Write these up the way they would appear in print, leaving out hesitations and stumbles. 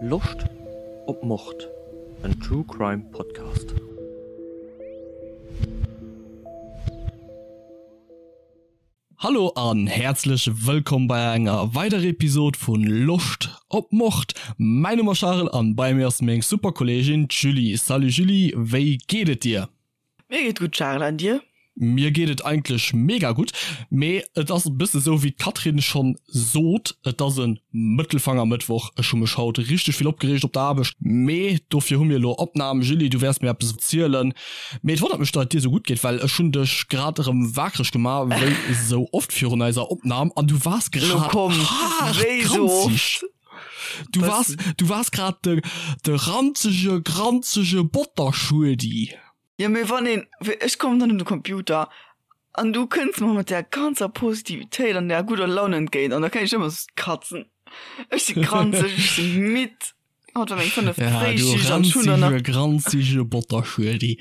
Loscht op Mord? En True Crime Podcast. Hallo an häerzlech wëllkomm bei enger weiderer Episod vun Loscht op Mord. Mäin Numm ass Charel an bei mir ass meng super Kolleegin d'Julie. Salut Julie, wéi geet et dir? Mir geet gutt Charel, an dir? Mir geet et eigentlech mega gutt, mee et ass e bësse sou wéi d'Catherine schonn sot, et ass e Mëttelfangermëttwoch. Ech hu mech haut richteg vill opgereegt op der Aarbecht, mee dofir hu mir elo Opnam. Julie, du wäers mir eppes erzielen, mee et wonnert mech, datt et dir sou gutt geet, well ech hunn dech grad erëm wakereg gemaach, wéi sou oft virun eiser Opnam, an du waars Lo grad komm, haart wéi sou granzeg. oft? Du waars, du waars grad de, de ranzege, granzege Botterschuedi. Jo mee wann een, ech kommen dann un de Computer an du kënns mer mat där ganzer Positivitéit an där gudder Laun entgéint an da kann ech ëmmer sou katzen. Ech si granzeg, ech si midd, haut war meng fënneft Ja, du Fréischicht an ech hunn dann nach. ranzege, granzege Botterschuedi.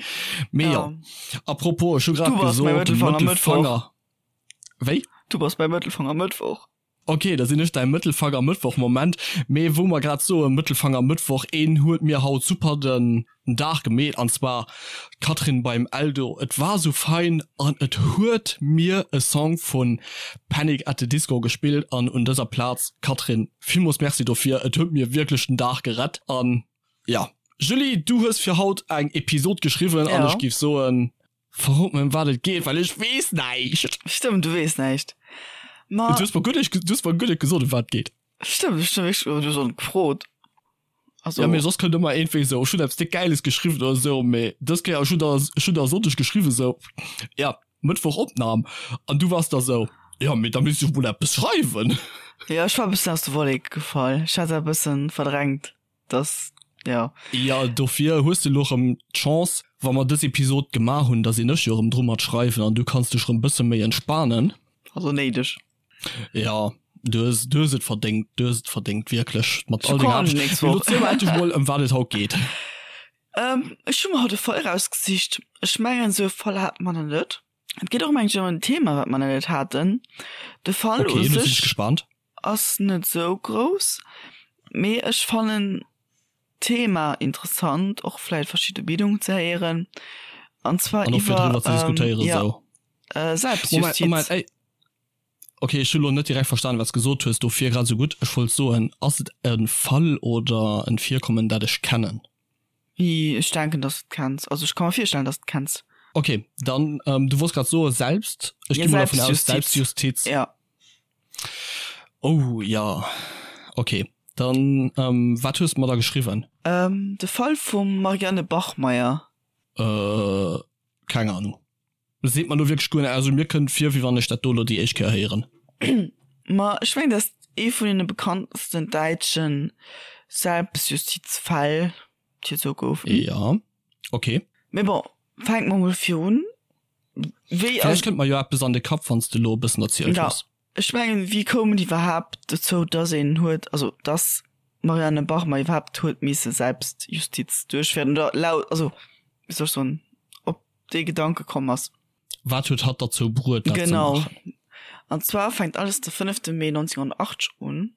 Mee jo, Ja. à propos, ech hu grad Du bass mäi gesot, Mëttelfanger Mëttwoch. Mëttelfanger. Wéi? Du bass mäi Mëttelfanger Mëttwoch. Ok, da sinn ech däi Mëttelfanger Mëttwoch. Moment, mee wou mer grad soe Mëttelfanger Mëttwoch, een huet mir haut super den Dag gemeet, an zwar d'Catherine beim Eldo. Et war sou fein an et huet mir e Song vu Panic at the Disco gespillt an un dëser Plaz, Catherine, villmools Merci dofir, et huet mir wierklech den Dag gerett. An jo, Julie, du hues fir haut eng Episod geschriwwen an ech géif soen, Verrot mir ëm wat et geet, well ech weess näischt. Stëmmt, du weess näischt. Ma. Du hues mer guer net, du hues mer guer net gesot ëm wat et geet. Stëmmt, ech hunn wierklech, du hues och net gefrot. Also. Ja, mee soss kënnt ëmmer iergendwéi esou, ech hunn eppes déck Gäiles geschriwwen oder esou, mee dës Kéier, ech hunn der, ech hunn der e Sonndeg geschriwwen esou, ja, Mëttwoch Opnam, an du waars da esou, jo, mee da misst ech mol eppes schreiwen. Jo, ech war e bëssen aus de Wolleke gefall. Ech hat dat e bëssen verdrängt. Das, ja. Ja, dofir hues de elo rëm d'Chance, wa mer dës Episod gemaach hunn, da sinn ech jo rëm dru mat schreiwen an du kanns dech rëm bësse méi entspanen. Also néideg. Ja, du hues, du hues et verdéngt, du hues et verdéngt, wierklech, mat all denger Aarbecht. Mee elo ziel mer endlech mol, ëm wat et haut geet. Ech hu mer haut e Fall erausgesicht. Ech mengen, esou e Fall hate mer nach net. Et geet och ëm eng en Thema, wat mer nach net haten. De Fall u sech. Okay, elo sinn ech gespaant. Ass net sou grouss, mee ech fannen d'Thema interessant, och vläit verschidde Meenungen ze héieren, an zwar An och fir iwwer driwwer ze diskutéieren ja esou. Moment, Selbstjustiz. Moment, ey, okay, ech hu lo net direkt verstanen, wat s gesot hues, dofir grad esou gutt. Ech wollt soen, ass et e Fall oder en Virkommen, dat ech kennen? Ech denken, dass du et kenns. Also ech ka mer virstellen, dass du et kenns. Okay, dann, du wolls grad soe selbst, ech Ja, gi mol dervun aus, Selbstjustiz. Selbstjustiz. Ja. Oh ja, okay. Dann ähm, wat hues de mer da geschriwwen? Ähm, de Fall vum Marianne Bachmeier. Äh, keng Ahnung. Seet mer lo wierklech guer näischt. Also mir kënnt vir, wéi wann ech dat do lo déi éischt Kéier héieren. Ma ech mengen, dat ass ee vun deene bekanntesten däitsche Selbstjustizfäll, déi et esou goufen. Ja, okay. Mee bon, fänke mer mol virun. Wéi Vläicht kënnt mer jo eppes an de Kapp, wann s de elo e bëssen erzielt Ja, hues. ech mengen, wéi koum et iwwerhaapt dozou, dass een huet, also dass d'Marianne Bachmann iwwerhaapt huet misse Selbstjustiz duerchféieren oder laut, also wéi soll ech soen, op dee Gedanke komm ass? Wat huet hatt derzou bruet, dat ze Genau. maachen? An zwar fänkt alles de fënnefte Mee 1980 un.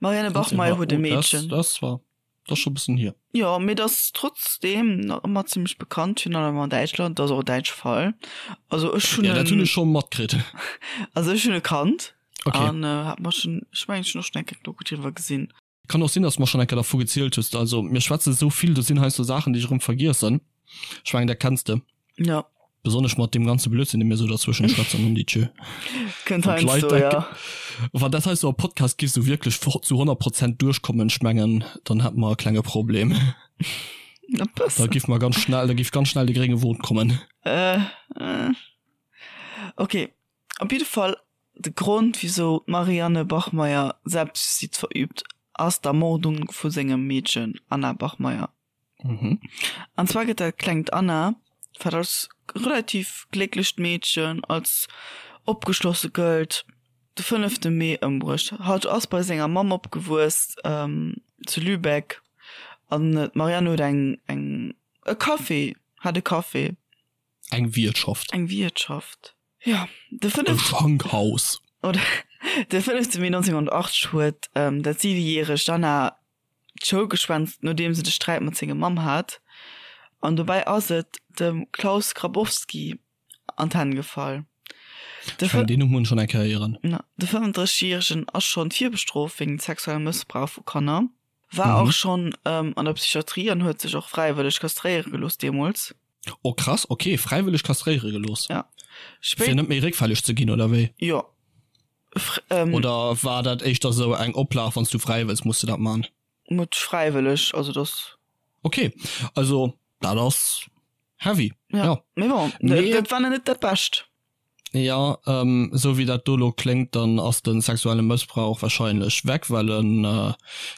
D'Marianne Bachmeier huet e Oh, Meedchen. Das, das war das schon bëssen hier. Jo, mee dat ass trotzdeem nach ëmmer zimmlech bekannt, virun allem an Däitschland. Dat ass och e däitsche Fall. Also ech hunn Ja, dat hunn en, ech scho matkritt. also ech hunn e kannt Okay. an hat mer schonn, ech mengen ech hunn och schonn eng Kéier Doku driwwer gesinn. Kann och sinn, dass du mer schonn eng Kéier dervu gezielt hues. Also mir schwätze sou vill, do sinn heiansdo Saachen, déi ech erëm vergiessen. Ech mengen, dat kenns de. Ja. Besonnesch mat deem ganze Blödsinn, dee mir sou derzwëschen schwätzen, hun déi Tjö. Kënnt Wann d'Leit heiansdo, dat, ja. wann dat heiansdo am Podcast giff sou wierklech zu 100 Prozent duerchkommen, ech mengen, dann hätte mer e klenge Problem. E Da bëssen. giff mer ganz schnell, da giff ganz schnell de grénge Won kommen. Äh, äh. Okay, op jidde Fall, de Grond, wisou d'Marianne Bachmeier Selbstjustiz verüübt, ass d'Ermordung vu sengem Meedchen Anna Bachmeier. Mhm. An zwar gëtt dat klengt Anna, wat als relativ glécklecht Meedchen, als opgeschlosse gëllt, de fënnefte Mee ëmbruecht. Hatt ass bei senger Mamm opgewuess zu Lübeck an d'Marianne huet eng, eng, e Café, hat e Café. Eng Wiertschaft. Eng Wiertschaft, jo. De fënnefte. E Schankhaus. Oder de fënnefte Mee 1980 huet dat siwejäregt Anna. d'Schoul geschwänzt, nodeems en de Sträit mat senger Mamm hat, an dobäi ass et dem Klaus Grabowski an d'Hänn gefall. De Deen Numm hunn ech schonn eng Kéier héieren. De 35 Järegen ass schonn virbestrooft wéinst sexuellem Mëssbrauch vu Kanner, war och schonn an der Psychiatrie an huet sech och fräiwëlleg kastréiere gelooss deemools. Oh krass, ok, fräiwëlleg kastréiere gelooss? Ja. Fir net méi réckfälleg ze ginn, oder wéi? Jo. Oder war dat éischter sou eng Oplag, wann s du fräi wëlls, muss de dat man? Net fräiwëlleg, also dass. Ok, also dat ass heavy. Ja, ja. Mee bon, mee, dat war net dat Bescht. Ja, ähm, sou wéi dat do lo kléngt, dann ass de sexuelle Mëssbrauch wahrscheinlech weg, well en äh,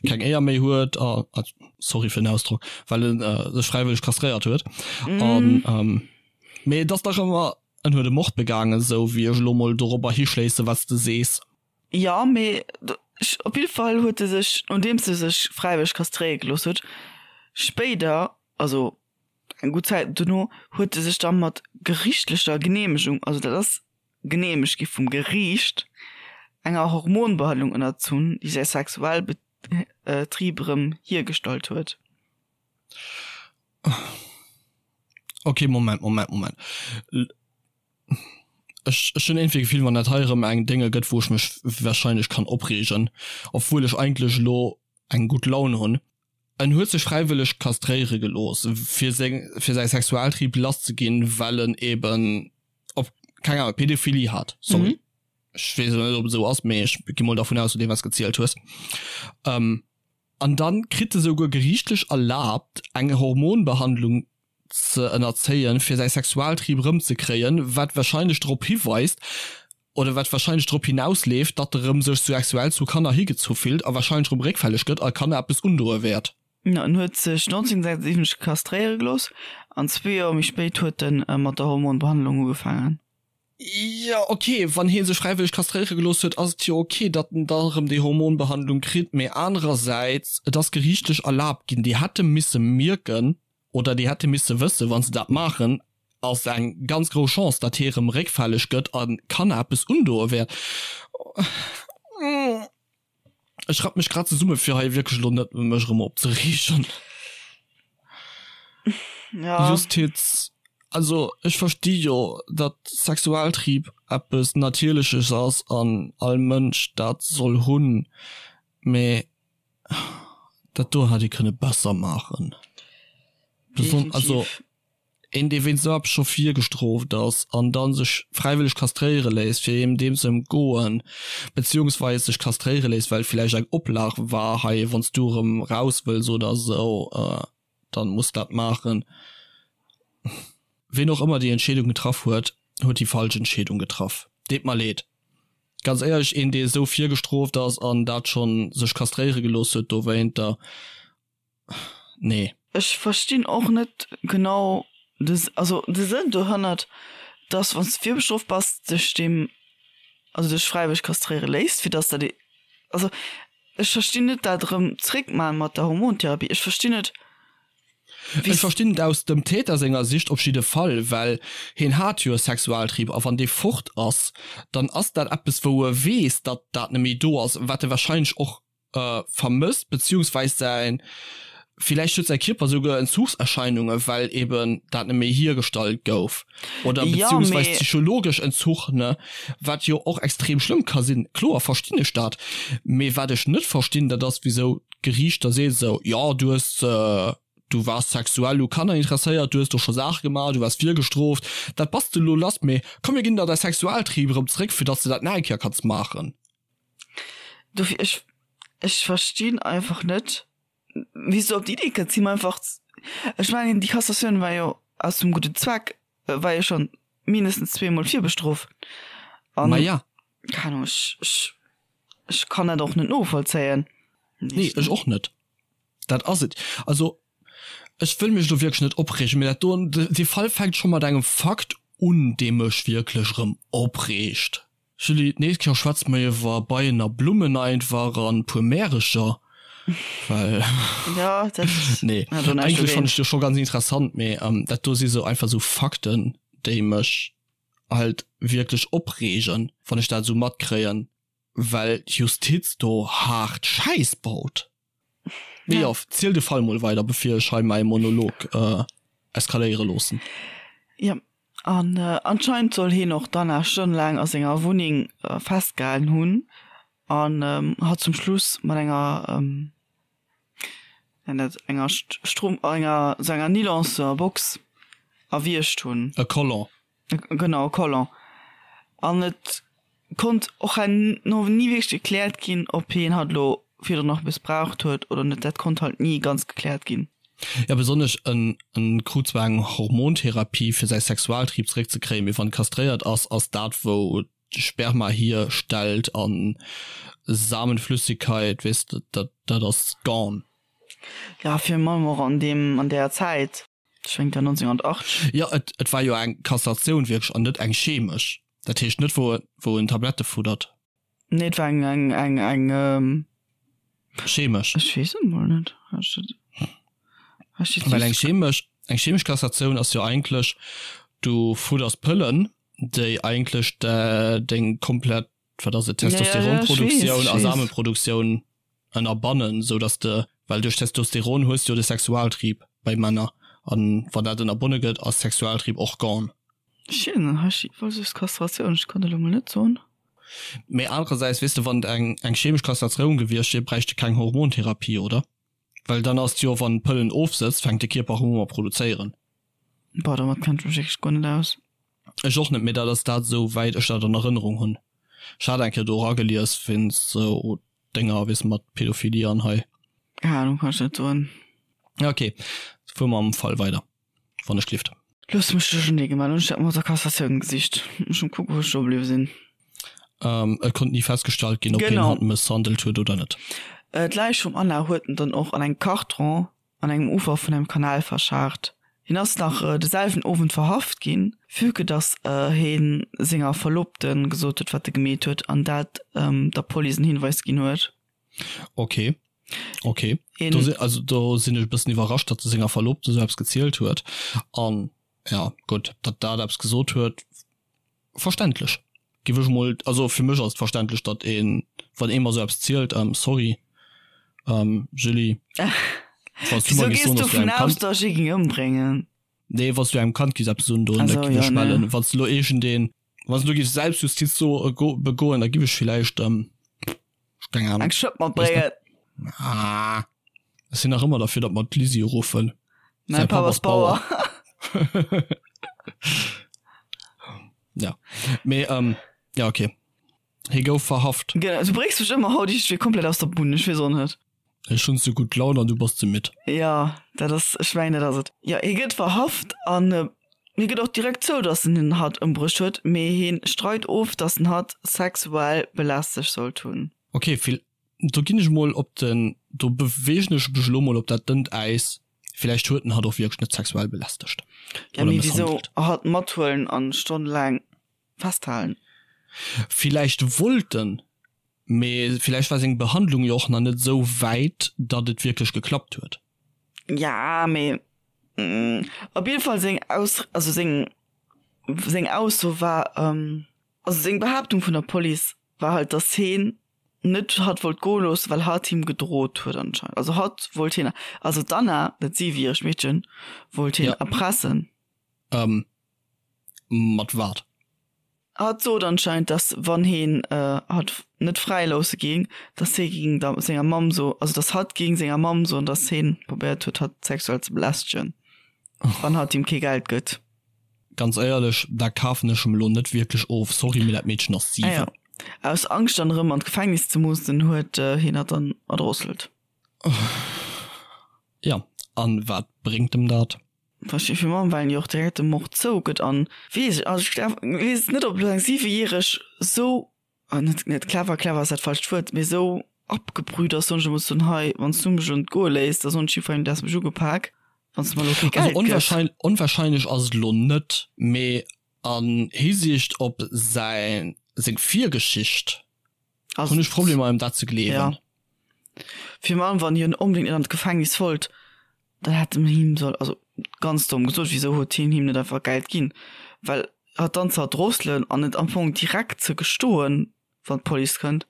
keng Éier méi huet, a, äh, sorry fir den Ausdrock, well en äh, sech fräiwëlleg kastréiert huet. Mm. An, ähm, mee et ass dach ëmmer, en huet e Mord begaangen, sou wéi ech elo mol dorobber hischléisse wat s de sees. Jo, mee op jidde Fall huet e sech, nodeems e sech fräiwëlleg kastréiere gelooss huet, spéider, also eng gutt Zäit dono, huet e sech da mat geriichtlecher Geneemegung, also dat ass geneemegt gi vum Geriicht, enger Hormonbehandlung ënnerzunn, déi säi Sexualbetrib erëm hiergestallt huet. Ok, Moment, Moment, Moment. Ech ech hunn iergendwéi d'Gefill, wann dat hei erëm eng Dénge gëtt, wou ech mech wahrscheinlech kann opreegen, obwuel ech eigentlech elo eng gutt Laun hunn. En huet sech fräiwëlleg kastréiere gelooss, fir seng fir säi Sexualtrieb lass ze ginn, well en eben op, keng Ahnung, Pedophilie hat. Sorry, ech weess elo net, ob et esou ass, mee ech gi mol dervun aus, no deem wat s gezielt hues. An dann kritt e souguer geriichtlech erlaabt, eng Hormonbehandlung ze ënnerzéien, fir säi Sexualtrieb erëmzekréien, wat wahrscheinlech drop hiweist, oder wat wahrscheinlech drop hinausleeft, datt e rëm sech sexuell zu Kanner higezu fillt a wahrscheinlech rëm réckfälleg gëtt a Kanner eppes undoe wäert. En huet sech 1976 kastréiere gelooss an zwee Joer méi spéit huet e mat der Hormonbehandlung ugefaangen. Jo, ok, wann hie sech fräiwëlleg kastréiere gelooss huet, ass et jo ok, datt en da erëm déi Hormonbehandlung kritt. Mee anerersäits, et ass geriichtlech erlaabt ginn. Déi hätte misse mierken oder déi hätte misse wëssen, wa se dat maachen, ass eng ganz grouss Chance, datt hie erëm réckfälleg gëtt a Kanner eppes undoe wäert. Ech rapp mech grad zesumme fir hei wierklech elo net mech erëm opzereegen. Ja. Justiz, also ech versti jo, datt Sexualtrieb eppes Natierleches ass an all Mënsch dat soll hunn, mee dat do hätt ee kënne besser maachen. Beson also. Een dee wéinst esou eppes scho virgestrooft ass an dann sech fräiwëlleg kastréiere léisst fir eem deem ze ëmgoen, beziehungsweis sech kastréiere léisst well villäicht eng Oplag war, hei wanns du erëm raus wëlls oder esou, dann muss dat maachen. Ween och ëmmer déi Entscheedung getraff huet, huet déi falsch Entscheedung getraff. Deet mer leed. Ganz éierlech, een dee esou virgestrooft ass an dat schonn sech kastréiere gelooss huet dowéinter, Nee. Ech verstinn och net genau de, also de Sënn dohannert, dass wann s de virbestrooft bass, dech deem, also dech fräiwëlleg kastréiere léisst, fir dass dat, also ech verstinn net dat erëm zréckman mat der Hormontherapie. Ech verstinn net wéi. Ech verstinn et aus dem Täter senger Sicht op jidde Fall, well hien hat jo e Sexualtrieb a wann dee fort ass, dann ass dat eppes wou e weess, datt dat net méi do ass, wat e wahrscheinlech och vermësst, beziehungsweis säin, villäicht huet säi Kierper souguer Entzuchserscheinungen, well eben dat net méi hiergestallt gouf, oder Ja, beziehungsweis mee. psychologesch Entzuch, ne, wat jo och extrem schlëmm ka sinn. Kloer verstinn ech dat, mee wat ech net verstinn, dat ass wisou d'Geriicht da seet esou, jo du hues, du waars sexuell u Kanner interesséiert, du hues do scho Saache gemaach, du waars virgestrooft, dat bass de elo lass, mee komm mir ginn der däi Sexualtrieb erëm zréck, fir datt s de dat nach eng Kéier kanns maachen. Dofir, ech, ech verstinn einfach net, wéi s du op déi Idee kënns, him einfach, ech mengen, déi Kassatioun war jo aus dem gudden Zweck, war jo schonn mindestens zweemol virbestrooft. An, Ma ja. keng Ahnung, ech, ech, ech kann dat och net novollzéien. Nee, ech och net. Dat ass et. Also, ech wëll mech elo wierklech net opreegen, mee dat do, dee Fall fänkt scho mat engem Fakt un, dee mech wierklech erëm opreegt. Julie, d'nächst Kéier schwätze mer iwwer Beien a Blummen einfach an puer Märecher, well Ja, dat nee, hat och näischt eigentlech fannen ech dogéint. jo scho ganz interessant, mee dat do si sou einfach sou Fakten, déi mech halt wierklech opreegen, wann ech dat esou matkréien, well d'Justiz do haart Schäiss baut. Mee jo, ziel de Fall mol weider, bevir ech hei mäi Monolog eskaléiere loossen. Jo, an anscheinend soll hien och d'Anna stonnelaang a senger Wunneng festgehalen hunn an hatt zum Schluss mat enger, nennt dat enger Strom, enger, sou enger Nylonsbox erwiergt hunn. E Collant. Genau, e Collant. An et konnt och herno ni wierklech gekläert ginn, ob hien hatt elo virdrun nach mëssbraucht huet oder net. Dat konnt halt ni ganz gekläert ginn. Jo, besonnesch en en krut zwar eng Hormontherapie fir säi Sexualtrieb zeréckzekréien, mee wann kastréiert ass, ass dat wou Sperma hierstellt an Samenflüssigkeit, weess de, dat dat ass gone. Jo, virun allem och an deem an där Zäit. Ech mengen, et war 1980. Jo, et et war jo eng Kastratioun wierklech an net eng chemesch. Dat heescht net wou wou en Tablette fuddert. Nee, et war eng eng eng eng. Chemesch. Ech weess et mol net. Ech ech Well eng chemesch eng chemesch Kastratioun ass jo eigentlech, du fudders Pëllen, déi eigentlech deng komplett, wat ass et, Testosteronproduktioun a Samenproduktioun ënnerbannen, sou dass de, well duerch Testosteron hues de jo de Sexualtrieb bei Männer, an wann dat ënnerbonne gëtt, ass Sexualtrieb och gone. Schön, hei steet voll just Kastratioun, ech kann dat elo mol net soen. Mee anerersäits, weess de, wann et eng eng chemesch Kastratioun gewiescht wier, bräicht de keng Hormontherapie, oder? Well dann ass et jo, wann d'Pëllen ofsëtzt, fänkt de Kierper erëm u mat produzéieren. Boah, domat kenn ech mech wierklech guer net aus. Ech och net, mee dat ass dat esou wäit ech dat an Erënnerung hunn. Ech hat eng Kéier do eragelies wéinst sou Dénger, weess mat Pädophilie an hei. Keng Ahnung, kann ech net soen. Ok, fuer mam Fall weider, wann ech gelift. Looss mech duerchernee gemaach, hunn ech dat mat der Cassatioun gesicht. Ech muss kucken, wou ech do bliwwe sinn. Et konnt ni festgestallt ginn, ob hien hatt mësshandelt huet oder net. D'Läich vum Anna huet en dann och an engem Karton an engem Ufer vun engem Kanal verschaart. Hien ass nach de selwen Owend verhaft ginn, vue que dass hie senger Verlobte gesot huet, wat e gemeet huet an dat der Police en Hinweis ginn huet. Ok, ok. Do si, also do sinn ech e bëssen iwwerrascht, datt e senger Verlobte esou eppes gezielt huet. An ja, gutt, datt dat eppes gesot huet, Verständlech, giff ech mol, also fir mech ass et verständlech datt een, wann ee mer sou eppes zielt, ähm sorry ähm Julie, wanns du mer Wieso giss gees soen du dass du vun engem aus Kand, dass ech ee ging ëmbréngen? nee wanns du engem Kand giss eppes undoen, da Also giff jo ech nee. mellen, wanns du lo iergendeen, wanns du giffs Selbstjustiz so begoen, da giff ech villäicht ähm keng Ahnung, Eng Schëpp matbréngen. Ah, ech sinn nach ëmmer derfir datt mer d'Lisi ruffen. Mäin Papp ass Bauer. Ja, mee ähm, ja okay. Hie gouf verhaft. Genau, du bréngs mech ëmmer haut iergendwéi komplett aus der Bunn, ech weess och net. Ech hunn ze gutt Laun an du bass ze midd. Ja, dat ass, ech mengen dat ass et. Jo, hie gëtt verhaft an hie gëtt och direkt zou, datt en den hatt ëmbruecht huet, mee hie streit of, datt en hatt sexuell belästegt sollt hunn. Okay, vill, do ginn ech mol op den, do beweegen ech mech elo mol op dat dënnt Äis, villäicht huet en hatt och wierklech net sexuell belästegt Ja, oder mee wisou mësshandelt. hatt mathuelen an stonnelaang festhalen? Villäicht wollt en, mee villäicht war seng Behandlung jo och nach net esou wäit, datt et wierklech geklappt huet. Ja, mee op jidde Fall seng Aus, also seng, seng Ausso war, also seng Behaaptung vun der Police war halt, datt heen net hatt wollt goe loossen, well hatt him gedrot huet anscheinend. Also hatt wollt hien, also d'Anna, dat siwejäregt Meedchen, wollt hien Ja. erpressen. Ähm, mat wat? Hatt sot anscheinend, dass wann heen hatt net fräi loosse géing, dass hee géing der senger Mamm so, also dass hatt géing senger Mamm soen, dass heen probéiert huet hatt sexuell ze belästegen, wann hatt him kee Geld gëtt. Ganz éierlech, dat kafen ech em elo net wierklech of, sorry, mee dat Meedchen ass Ah 7. jo, aus Angscht dann erëm an d'Gefängnis ze mussen, huet heen hatt dann erdrosselt. Jo, an wat bréngt em dat? Versteet fir Mamm, well en jo och direkt de Mord zougëtt an weess ech, also ech glaw, weess net ob elo eng siwejäreg sou, net net clever, clever ass dat falscht Wuert, mee sou abgebrüht ass, soen ech emol soen, hei wann s du mech elo net goe léiss, da soen ech jiddwerengem du häss mech ugepak, wann s de mer elo kee Also Geld gëss. onwahrscheinlech, onwahrscheinlech ass et elo net, mee an Hisiicht op säin, seng Virgeschicht Also hunn ech Problemer em dat ze gleewen. Ja. Virun allem wann hien onbedéngt net an d'Gefängnis wollt, Dann hätt en him soll, also ganz domm gesot, wisou huet hien him net einfach Geld ginn? Well hatt dann ze erdrosselen an et am Fong direkt ze gestoen, wann d'Police kënnt,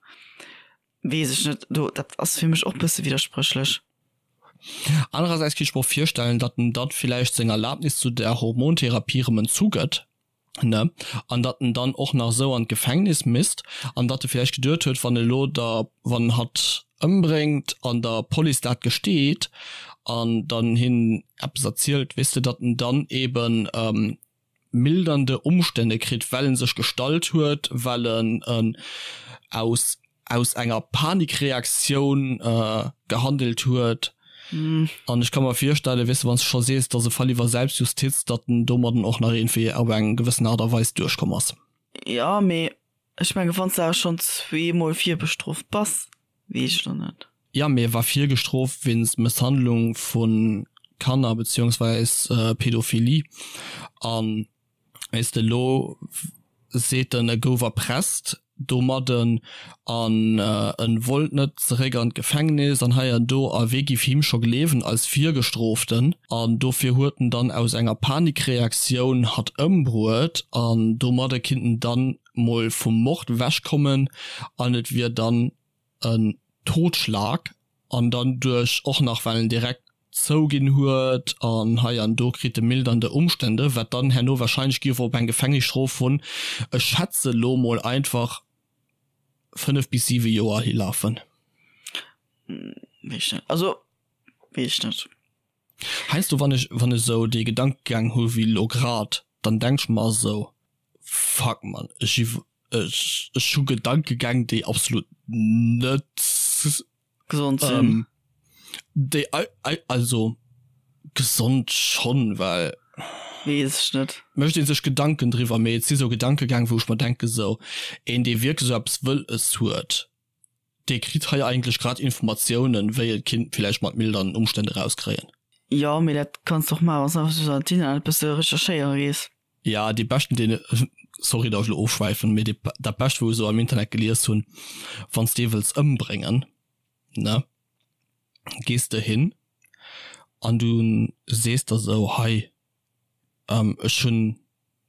weess ech net, do dat ass fir mech och bësse widderspréchlech. Anerersäits kinnt ech mer och virstellen, datt en dann villäicht seng Erlaabnis zu der Hormontherapie rëm entzugëtt, ne, an datt en dann och nach esou an d'Gefängnis misst an datt e villäicht geduet huet, wann elo der, wann hatt ëmbréngt an der Police dat gesteet an dann hinnen eppes erzielt, weess de, datt en dann eben mildernde Umstände kritt, well en sech gestallt huet, well en aus aus enger Panikreaktioun gehandelt huet. An ech ka mer virstellen, weess de, wann s de scho sees, et ass e Fall iwwer Selbstjustiz, datt en domadden och nach iergendwéi op eng gewëssen Aart a Weis duerchkomm ass. Jo, mee ech menge wann s de awer schonn zweemol virbestrooft bass, weess ech elo net. Jo, mee e war virgestrooft wéinst Mësshandlung vu Kanner beziehungsweis Pädophilie. An weess de, elo seet en, e gouf erpresst domadden an en wollt net zeréck an d'Gefängnis an hei an do. A wee giff him scho gleewen als Virgestrooften? An dofir huet en dann aus enger Panikreaktioun hatt ëmbruet an domadde kinnt en dann mol vum Mord wechkommen an et wier dann en Totschlag an dann duerch och nach well en direkt zouginn huet an hei an do kritt e mildernde Umstände, wat dann herno wahrscheinlech giff op eng Gefängnisstrof vun, ech schätze lo mol einfach 5 bis 7 Joer hilafen. Weess ech net, also weess ech net. Heiansdo wann ech wann ech esou dee Gedankegang hu wéi lo grad, dann denk ech mer esou, fuck man, ech iw ech ech hu Gedankegäng déi absolut net Gesond sinn. Déi also gesond schonn, well. Weess ech net. Mécht ee sech Gedanken driwwer, mee et si sou Gedankegäng wou ech mer denke sou, een dee wierklech sou eppes wëlles huet, dee kritt hei eigentlech grad Informatiounen wéi e kinnt villäicht mat mildernden Umstänn erauskréien. Jo, mee dat kanns de och maachen, wann s de einfach sou an d'Internet e bësse recherchéiere gees. Ja, dee beschten deen, sorry datt ech elo ofschwäifen, mee dee dat bescht wou ech esou am Internet gelies hunn, wann s de ee wëlls ëmbréngen, ne, gees de hin an du sees der esou, hei ech hunn,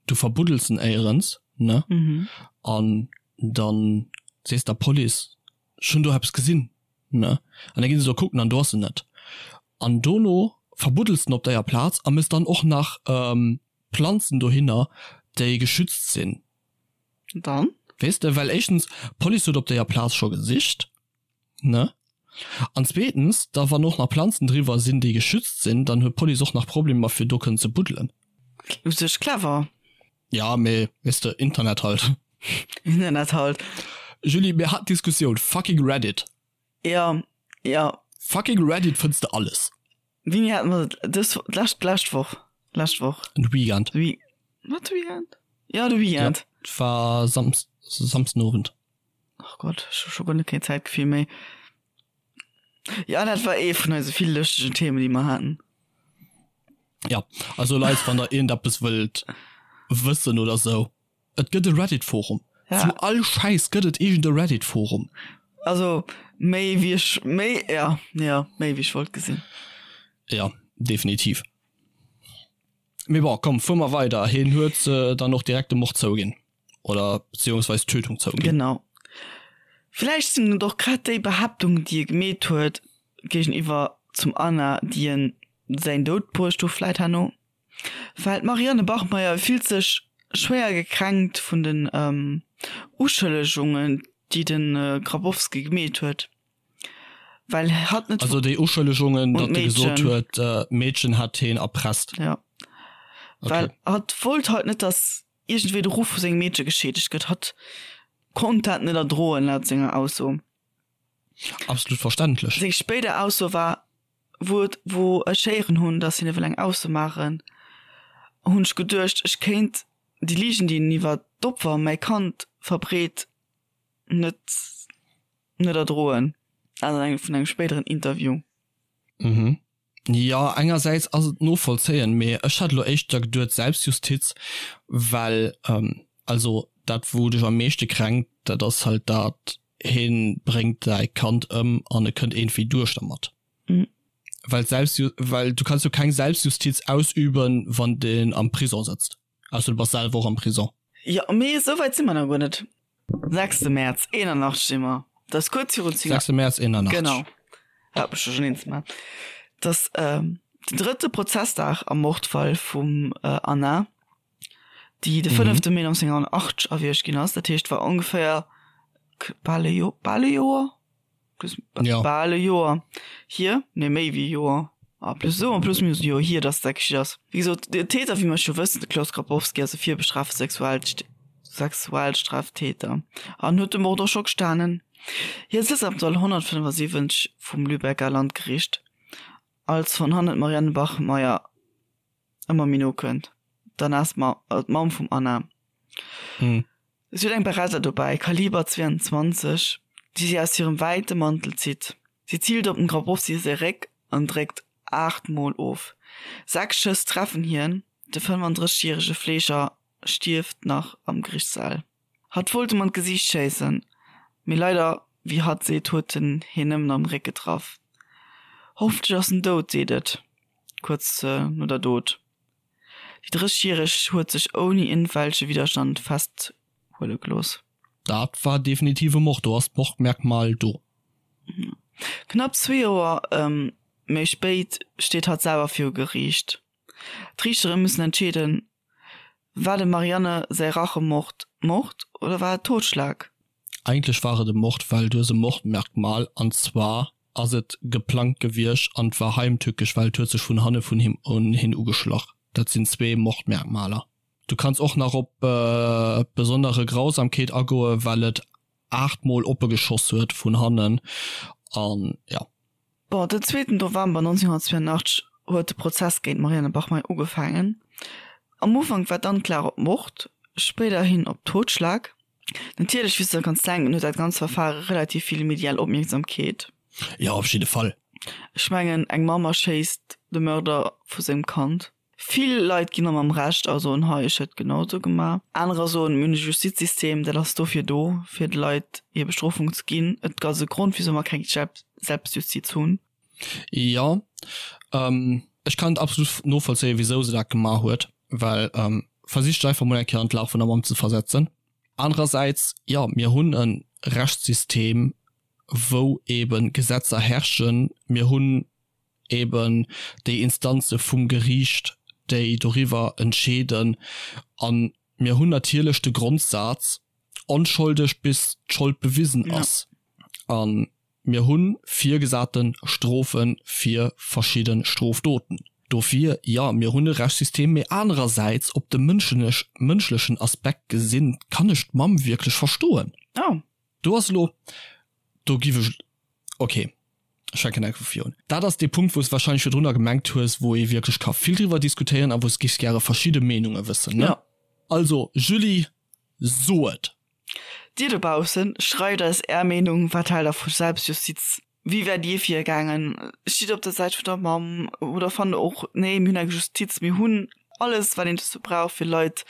du verbuddels en éierens, ne, an dann sees der Police, ech hunn do eppes gesinn, ne, an da ginn se do kucken an do ass en net. An dono verbuddels en op deier Plaz a mëss dann och nach Planzen dohinner, déi geschützt sinn. Dann? Weess de, well éischtens, d'Police huet op deier Plaz scho gesicht, ne, an zweetens, da wann och nach Planzen driwwer sinn, déi geschützt sinn, dann huet d'Police och nach Problemer fir do kënnen ze buddelen. U sech clever. Ja, mee weess de, Internet halt. Internet halt. Julie, mir haten d'Diskussioun, fucking Reddit. Ja, ja. Fucking Reddit fënns de alles. Wéini haten mer dat? Dës, d'lescht, d'lescht Woch. Lescht Woch. De Weekend. De Week, wat de Weekend? Ja, de Weekend. Ja, et war Samst, Samsdenowend. Ach Gott, ech hu scho guer net keen Zäitgefill méi. Ja, dat war ee vun eise vill lëschtegen Themen, déi mer haten. Ja, also Leit, wann der iergendeppes wëllt wëssen oder sou, Et gëtt e Reddit-Forum. Ja. Zu all Schäiss gëtt et iergend e Reddit-Forum. Also méi wéi ech, méi, ja, ja, méi wéi ech wollt gesinn. Ja, definitiv. Mee bon, komm, fuer mer weider. Hien huet dann och direkt de Mord zouginn. Oder beziehungsweis d'Tötung zouginn. Genau. Villäicht sinn et och grad déi Behaaptungen, déi e gemeet huet géigeniwwer zum Anna, déi en säin Doud bruecht hu vläit herno. Well d'Marianne Bachmeier fillt sech schwéier gekränkt vun den Uschëllegungen, déi de Grabowski gemeet huet, well hatt net. Also déi Uschëllegungen, datt e gesot huet, d'Meedchen hätt hien erpresst. Jo, well hatt wollt halt net, datt iergendwéi de Ruff vu sengem Meedche geschiedegt gëtt. Hatt konnt dat net erdroen, laut senger Ausso. Absolut verständlech. Seng spéider Ausso war, Wou et, wou ech héieren hunn, datt hien ewell eng Ausso maachen, hunn ech geduecht, ech kéint déi Ligen, déi en iwwer d'Opfer, mäi Kand, verbreet, net, net erdroen. Dat an engem, vun engem spéideren Interview. Mhm. Jo, engersäits ass et novollzéien, mee ech hat elo éischter geduet Selbstjustiz, well, also dat wou dech am meeschte kränkt, dat ass halt dat, Heen bréngt säi Kand ëm an e kënnt iergendwéi duerch dermat. Well d'Selbstju well du kanns jo keng Selbstjustiz ausüben, wann deen am Prison sëtzt, ausser du bass selwer och am Prison. Jo, mee esou wäit si mer nach guer net. Sechste Mäerz 81 si mer, dat ass kuerz virun 10. Sechste Mäerz 81. Genau, hat mech duercherneen ze maachen. Dass den drëtte Prozessdag am Mordfall vum Anna, déi de fënnefte Mee 1980 erwiergt ginn ass, dat heescht war ongeféier bal e Joer, bal e Joer, bal e Joer hier, nee méi wéi e Joer, ah plus esou en plus minus e Joer hier, dass dat geschitt ass. Wéi gesot, den Täter, wéi mer scho wëssen, de Klaus Grabowski ass e virbestrafte Sexualstraftäter an huet de Mord och scho gestanen. Hie sëtzt am Sall 175 vum Lübecker Landgericht, als von hannen d'Marianne Bachmeier ëmmer méi no kënnt. D'Anna ass d'Mamm vum Anna. Si huet eng Beretta dobäi, Kaliber 22, déi si aus hirem wäite Mantel zitt. Si ziilt op dem Grabowski säi Réck an dréckt 8 Mol of. 6 Schëss treffen hien, de 35 järege Fleeger stierft nach am Geriichtssaal. Hatt wollt em an d'Gesiicht schéissen, mee leider, wéi hatt seet, huet en hien nëmmen am Réck getraff. Hoffentlech ass en dout, seet et kuerz no der Dot. Déi 30 järeg huet sech ouni iergendwelche Widderstand festhuele gelooss. Dat war definitiv e Mord, do ass d'Mordmerkmal do. Knapp zwee Joer méi spéit steet hatt selwer viru Geriicht. D'Riichtere müssen entscheeden, War dem Marianne säi Rachemord Mord oder war et Totschlag? Eigentlech war et e Mord, well du hues e Mordmerkmal an zwar ass et geplangt gewiescht an et war heimtückesch, well et huet sech vun hanne vun him un hien ugeschlach. Dat sinn zwee Mordmerkmaler. Du kanns och nach op besondere Grausamkeet agoen, well et 8 mol oppe geschoss huet vun hannen an jo. Bon, den zweeten November 1982 huet de Prozess géint d'Marianne Bachmeier ugefaangen. Am Ufank war d'Anklag op Mord, spéiderhin op Totschlag. Natierlech, wéi s de kanns denken, huet dat ganz Verfare relativ vill medial Opmierksamkeet. Jo, op jidde Fall. Ech mengen, eng Mamm erschéisst de Mörder vu sengem Kand. Vill Leit ginn der mam Recht a soen, hei, ech hätt genau esou gemaach. Anerer soen, mir hunn e Justizsystem, dat ass dofir do, fir de Leit hir Bestrofung ze ginn. Et ass e Grond, wisou mer keng Selbstjustiz hunn. Jo, ech kann et absolut novollzéien, wisou se dat gemaach huet, well versich dech einfach mol eng Kéier an d'Lag vun der Mamm ze versetzen. Anerersäits, jo, mir hunn e Rechtssystem, wou eebe Gesetzer herrschen. Mir hunn eben déi Instanze vum Geriicht, déi doriwwer entscheeden. A mir hunn natierlech de Grondsaz, onscholdig bis d'Schold bewisen ass. A mir hu virgesate Strofe fir verschidde Strofdoten. Dofir, jo, mir hunn e Rechtssystem, mee anerersäits, op de mënschlechen Aspekt gesinn, kann ech d'Mamm wierklech verstoen. Do ass elo, do giff ech, ok, ech fänken enke vu vir un. Dat ass dee Punkt, wou s de wahrscheinlech virdrunner gemengt hues, wou ee wierklech ka vill driwwer diskutéieren a wou s giffs gäre verschidde Meenunge wëssen, ne? Jo. Also, Julie, so et! Dir dobaussen, schreift eis är Meenung, wat haalt der vu Selbstjustiz? Wéi wäert dir virgaangen? Stitt der op der Säit vun der Mamm oder fannt der och, nee, mir hunn eng Justiz, mir hunn alles, wat een dozou brauch, fir Leit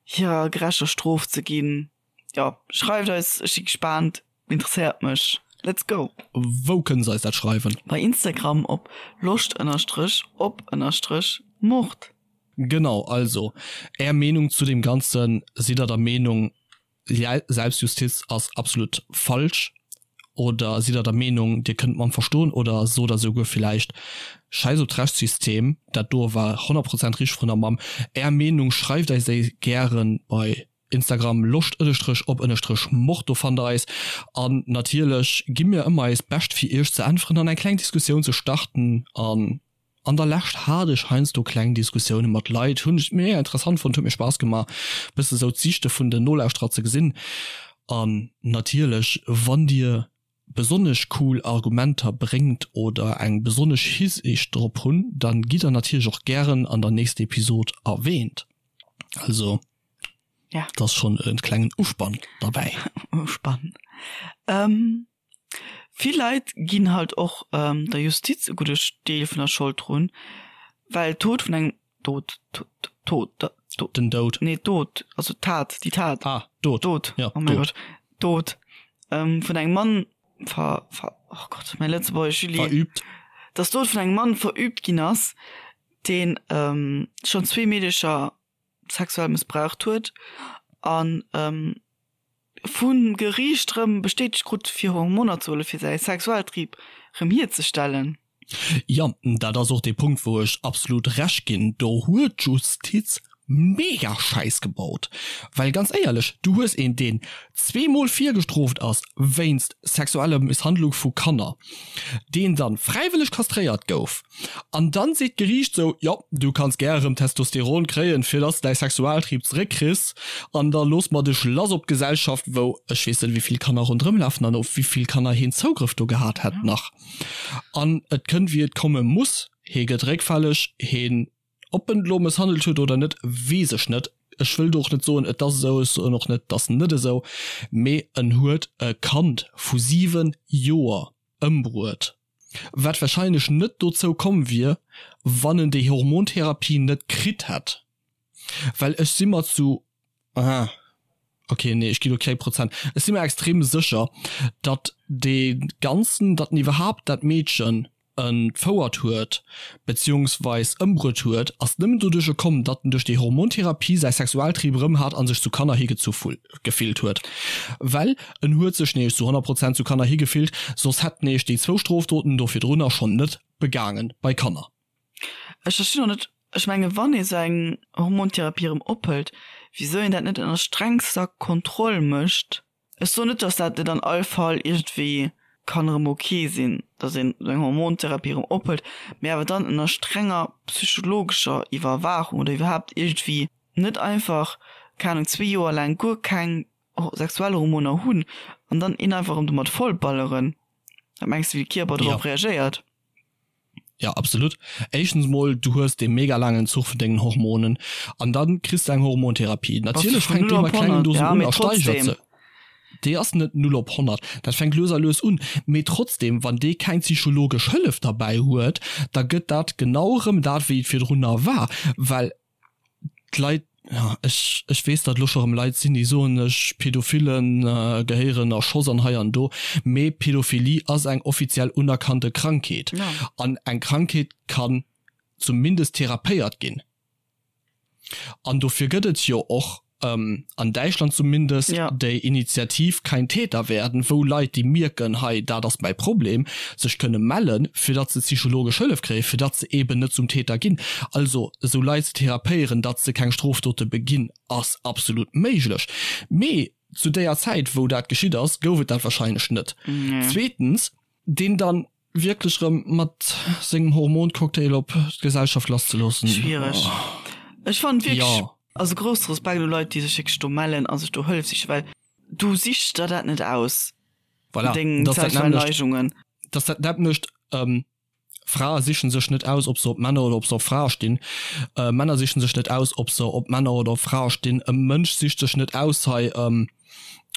hirer gerechter Strof ze ginn? Jo, schreift eis, ech si gespaant, interesséiert mech. Let's go! Wou kënne se eis dat schreiwen? Bei Instagram op loscht ënnerstrech op ënnerstrech mord. Genau, also är Meenung zu deem Ganzen, sidd der der Meenung Selbstjustiz ass absolut falsch oder sidd der der Meenung dir kënnt d'Mamm verstoen oder sot der souguer villäicht schäiss op d'Rechtssystem, dat do war 100 Prozent richteg vun der Mamm. Är Meenung schreift eis déi gären bei Instagram loscht ënnestrech op ënnestrech mord, do fannt der eis. An natierlech gi mir ëmmer eist Bescht fir iech ze äntweren an eng kleng Diskussioun ze starten. An an der Lescht hat ech heiansdo kleng Diskussioune mat Leit, hunn ech mega interessant fonnt, huet mir Spaass gemaach bësse sou d'Siichte vun den Nolauschterer ze gesinn. An natierlech wann dir besonnesch cool Argumenter bréngt oder eng besonnesch Hisiicht drop hunn, dann gitt der natierlech och gären an der nächster Episod erwähnt. Also ja. dat ass schonn e klengen Uspann derbäi. Uspann. Ähm, vill Leit ginn halt och ähm, der Justiz e gudde Deel vun der Schold drun, well Tod vun engem Dod, Tod, Tod, Tod, Den Doud. Nee, Dod, also Tat, déi Tat. Ah, Dod. Dod, ja, oh mein Gott. Dod ähm, vun engem Mann ver, ver, oh Gott, mein Lëtzebuergesch, Julie. Verübt. Dass Dod vun engem Mann verübt ginn ass, deen ähm, schonn zwee Meedecher sexuell mëssbraucht huet an ähm, vum Geriicht rëm bestätegt krut, fir Hormoner ze huelen, fir säi Sexualtrieb rëm hierzestellen. Jo, dat ass och dee Punkt, wou ech absolut Recht ginn. Do huet d'Justiz mega Schäiss gebaut. Well ganz éierlech, du hues een, deen zweemol virgestrooft ass wéinst sexueller Misshandlung vu Kanner, deen dann fräiwëlleg kastréiert gouf, an dann seet d'Geriicht sou, jo, du kanns gär erëm Testosteron kréien, fir dass de däi Sexualtrieb zeréckkriss, an da loosse mer dech lass op d'Gesellschaft, wou ech weess net, wéi vill Kanner ronderëm lafen an op wéi vill Kanner heen Zougrëff do gehat hätt nach. An et kënnt wéi et komme muss, hee gëtt réckfälleg, heen, ob en elo mësshandelt huet oder net, weess ech net, ech wëll do och net soen et ass esou, ech soen och net et ass net esou, mee en huet e Kand vu 7 Joer ëmbruet, wat wahrscheinlech net dozou komm wier, wann en déi Hormontherapie net kritt hätt, well ech si mer zu. Aha. Ok, nee, ech gi lo keng Prozent. Ech si mer extrem sécher, datt dee ganzen, datt en iwwerhaapt dat Meedchen entfouert huet, beziehungsweis ëmbruet huet, ass nëmmen doduercher komm, datt en duerch déi Hormontherapie säi Sexualtrieb erëm hat a sech zu Kanner higezu gefillt huet. Well en huet sech nämlech zu 100 Prozent zu Kanner higefillt, soss hätt en nämlech déi zwou Strofdoten do virdrunner schonn net begaangen bei Kanner. Ech verstinn och net, ech menge wann ee sou eng Hormontherapie erëm ophëlt, wisou een dat net ënner strengster Kontroll mécht. Ech soen net, datt dat net an all Fall iergendwéi kann erëm ok sinn, datt een sou eng Hormontherapie erëm ophëlt, mee awer dann ënner strenger psychologescher Iwwerwaachung oder iwwerhaapt iergendwéi net einfach, keng Ahnung, zwee Joer laang guer keng sexuell Hormoner hunn an dann een einfach erëm domat vollballeren. Wat mengs de wéi de Kierper dorop reagéiert? Ja absolut. Éischtens mol du hues dee mega laangen Zuch vun dengen Hormonen an dann kriss de eng Hormontherapie. Natierlech fänkt déi mat klengen Dosen un a steigert se. Déi ass net 0 op 100, dat fänkt lues a lues un. Mee trotzdem, wann dee keng psychologesch Hëllef derbäi huet, da gëtt dat genau erëm dat wéi et virdrunner war, well d'Leit, ja ech ech weess datt elo scho rëm Leit sinn déi soen ech Pädophillen gehéieren erschoss an hei an do, mee Pädophilie ass eng offiziell unerkannte Krankheet an eng Krankheet kann zumindest therapéiert ginn an dofir gëtt et jo och an Däitschland zumindest déi Initiativ Kein Täter werden, wou Leit déi mierken, hei dat ass mäi Problem, sech kënne mellen, fir datt se psychologesch Hëllef kréien, fir datt se eeben net zum Täter ginn. Also esou Leit ze therapéieren, datt se keng Strofdote beginn, ass absolut méiglech. Mee zu déier Zäit wou dat geschitt ass, gouf et dat wahrscheinlech net. Zweetens, deen dann wierklech rëm mat sengem Hormoncocktail op d'Gesellschaft lasszeloossen. Schwiereg. Ech fannen wierklech, jo. Also grousse Respekt u Leit, déi sech wierklech do mellen a sech do Hëllef sichen, well du sichs der dat net aus, voilà, deng sexuell Neigungen. Dass dat nämmlecht, Frae sichen sech net aus, ob se op Männer oder ob se op Frae stinn. Männer sichen sech net aus, ob se op Männer oder op Frae stinn. E Mënsch sicht sech net aus, hei,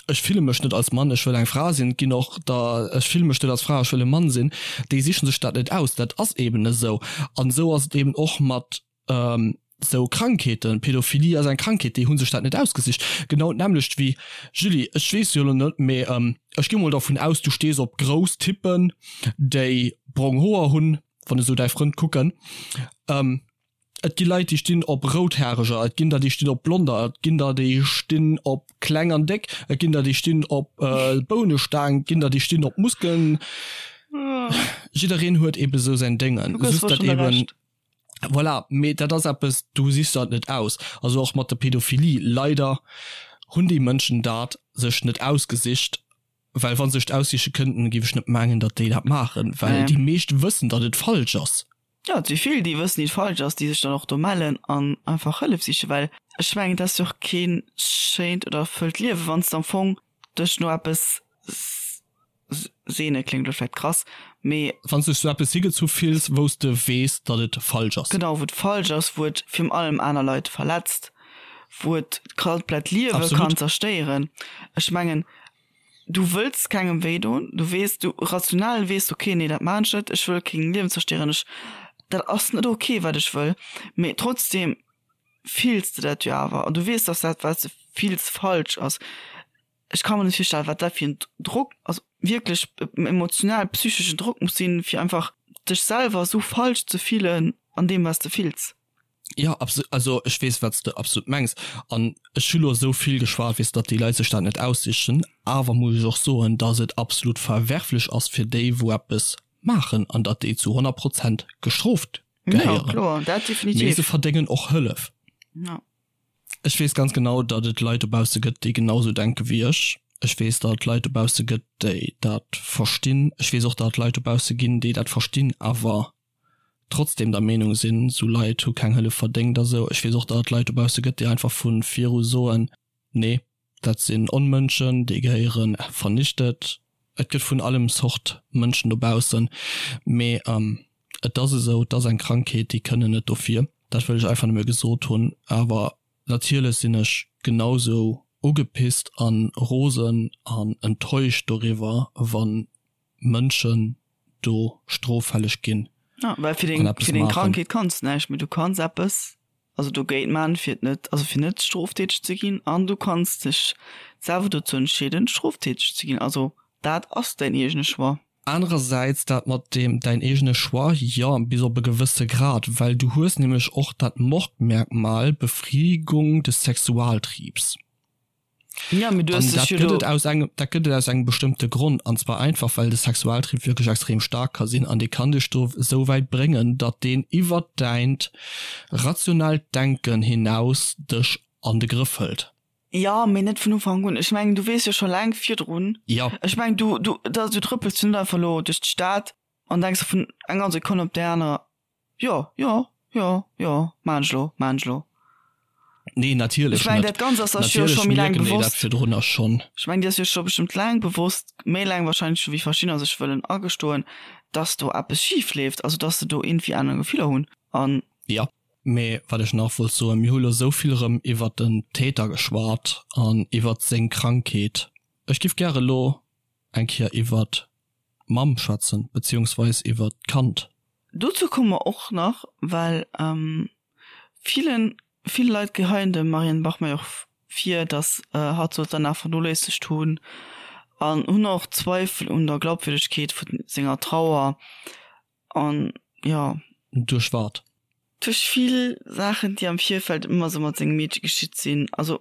ech fille mech net als Mann, ech wëll eng Fra sinn. Et ginn och der, ech fille mech net als Fra, ech wëll e Mann sinn. Déi sichen sech dat net aus, dat ass eben esou. An esou ass et eben och mat esou Krankheeten. Pädophilie ass eng Krankheet, déi hu sech dat net ausgesicht. Genau d'nämmlecht wéi, Julie, ech weess jo elo net, mee ech gi mol dervun aus, du stees op grouss Typen, déi brong Hoer hunn, wann ech esou däi Frënd kucken. Et gi Leit, déi stinn op Routhareger, et ginn der, déi stinn op Blonder, et ginn der, déi stinn op kleng an déck, et ginn der, déi stinn op Bounestaang, et ginn der, déi stinn op Muskeln. Jiddereen huet eebe sou säin Déngen. Just dat eeben, voilà, mee dat ass eppes, du sichs der et net aus. Also och mat der Pädophilie, leider hunn déi Mënschen dat sech net ausgesicht, well wa se sech et aussiche kënnten, géif ech net mengen, datt déi dat maachen, well déi meescht wëssen, datt et falsch ass. Jo, et si vill, déi wëssen, déi et falsch ass, déi sech dann och do mellen an einfach Hëllef sichen, well ech mengen, et ass jo och kee schéint oder erfëllt Liewen, wann s de am Fong dech no eppes sehne, kléngt elo vläicht krass, mee. Wann s de dech zu eppes higezu fills, wou s de weess, datt et falsch ass. Genau, wou et falsch ass, wou et virun allem aner Leit verletzt, wou et d'komplett Liewe kann zerstéieren. Ech mengen, Du wëlls kengem wéi doen, du weess, du rational weess, ok, nee dat maan ech net, ech wëll keng Liewen zerstéieren, ech, dat ass net ok wat ech wëll, mee trotzdem fills de dat jo awer an du weess, dass dat wat s de fills falsch ass. Ech ka mer net virstellen, wat dat fir en Drock, also wierklech emotional, psycheschen Drock muss sinn, fir einfach dech selwer esou falsch ze fillen an deem wat s de fills. Jo, absolut, also ech weess wat s de absolut mengs an ech hu lo esou vill geschwat, weess datt déi Leit sech dat net aussichen, awer muss ech och soen, datt et absolut verwerflech ass fir déi wou eppes. maachen an datt déi zu 100 Prozent gestrooft gehéieren. Ja, kloer, dat definitiv. Mee se verdéngen och Hëllef. Ja. Ech weess ganz genau, datt et Leit dobausse gëtt, déi genau sou denke wéi ech. Ech weess, datt et Leit dobausse gëtt, déi dat verstinn. Ech weess och, datt et Leit dobausse ginn, déi dat verstinn, awer trotzdem der Meenung sinn, sou Leit hu keng Hëllef verdéngt a sou. Ech weess och, datt et Leit dobausse gëtt, déi einfach vu viru soen, Nee, dat sinn Onmënschen, déi gehéiere vernichtet. Et gëtt vun allem Zort Mënschen dobaussen, mee et ass esou, et ass eng Krankheet, déi kënnen net dofir. Dat wëll ech einfach nëmme gesot hunn. Awer natierlech sinn ech genau sou ugepisst a rosen an enttäuscht doriwwer, wa Mënschen do stroffälleg ginn Ja, well fir an deng, eppes fir deng maachen. Krankheet kanns de näischt, mee du kanns eppes, also dogéint man, fir et net, also fir net stroftäteg ze ginn, an du kanns dech selwer dozou entscheeden, stroftäteg ze ginn. Also dat ass däin eegene Choix. Anerersäits dat mat deem däin eegene Choix, jo, bis op e gewësse Grad, well du hues nämlech och dat Mordmerkmal Befriedigung des Sexualtriebs. Ja, mee du An hues dat dech jo gëtt do. et aus engem, dat gëtt et aus engem bestëmmte Grond, an zwar einfach, well de Sexualtrieb wierklech extrem staark ka sinn an dee kann dech do esou wäit bréngen, datt deen iwwert däint rationellt Denken hinaus dech an de Grëff hëlt. Ja, mee net vun Ufank un. Ech mengen, du weess jo scho laang virdrun. Ja. Ech mengen, du, du, da, du trëppels jo net einfach elo duerch d'Stad an denks der vun enger Sekonn op déi aner, Jo, jo, jo, jo, maan ech lo, maan ech lo. Nee, natierlech Ech mengen, net. dat Ganzt ass sech jo Natierlech scho méi laang mierken déi dat bewosst. virdrunner schonn. Ech mengen, dir ass jo scho bestëmmt laang bewosst, méi laang wahrscheinlech scho wéi verschiddener sech wëllen agestoen, dass do eppes schif leeft, also dass se do iergendwéi aner Gefiller hunn an. Jo, mee wat ech nach wollt soen, mir hu lo esou vill erëm iwwert den Täter geschwat an iwwert seng Krankheet. Ech giff gäre lo eng Kéier iwwert d'Mamm schwätzen, beziehungsweis iwwert d'Kand. Dozou komme mer och nach, well villen, vill Leit geheien dem Marianne Bachmeier och vir, datt hatt sollt danach vernoléissegt hunn an hunn och Zweifel un der Glaubwürdegkeet vu senger Trauer an jo. Duerch wat? Duerch vill Saachen, déi am Virfeld ëmmer sou mat sengem Meedche geschitt sinn. Also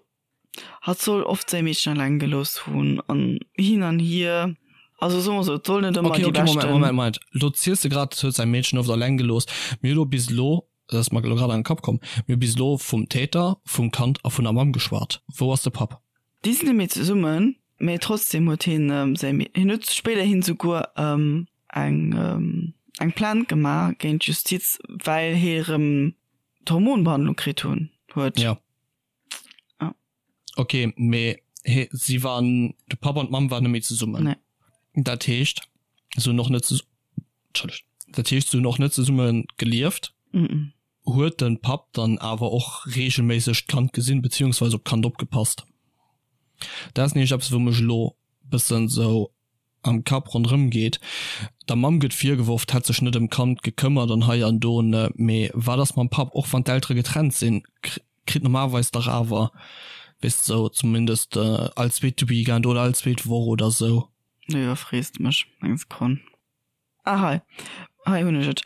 Hatt soll oft säi Meedchen alleng gelooss hunn an hin an hier. Also soe mer sou, et soll net ëmmer Okay, déi okay, Moment, beschten. Moment, Moment. Lo ziels de grad, huet säi Meedchen oft alleng gelooss. Mir hu lo bis elo, dat ass mer elo grad an den Kapp komm, mir hu bis elo vum Täter, vum Kand a vun der Mamm geschwat. Wou ass de Papp? Déi sinn net méi zesummen, mee trotzdem huet hien säi Mee, hien huet spéiderhin souguer eng eng Plainte gemaach géint d'Justiz, well hie rëm d'Hormonbehandlung kritt hunn huet. Jo. Ah. Okay, mee he, si waren, de Papp an d'Mamm waren net méi zesummen. Nee. Dat heescht, se hunn och net zesu-, Entschëllegt, dat heescht, se hunn och net zesumme gelieft. Mm -mm. Huet de Papp dann awer och reegelméisseg d'Kand gesinn, beziehungsweise op d'Kand opgepasst? Dat ass nämlech eppes, wou mech elo bëssen esou am Kapp ronderëm geet. Der Mamm gëtt virgeworf, d'hätt sech net ëm d'Kand gekëmmert an hei an do, ne, mee wat ass mam Papp? Och wann d'Eltere getrennt sinn, kritt normalerweis dach awer, weess de, sou zumindest all zweete Weekend oder all zweet Woch oder sou. Lo iwwerfrees de mech, eng Sekonn. Ah hei, hei hunn ech et,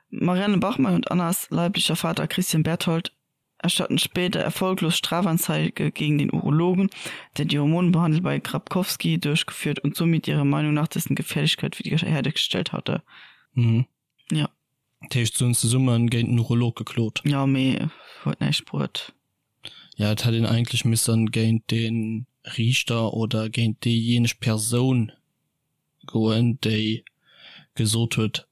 Marianne Bachmann und Annas leiblicher Vater Christian Berthold erstatten später erfolglos Strafanzeige gegen den Urologen, der die Hormonbehandlung bei Grabkowski durchgeführt und somit ihrer Meinung nach dessen Gefährlichkeit wiederhergestellt hatte. Mhm. Ja. Dat heescht, se hunn zesumme géint den Urolog geklot? Jo, mee huet näischt bruet. Ja, et hätt een eigentlech missen géint dee Riichter oder géint déijéineg Persoun goen, déi gesot huet,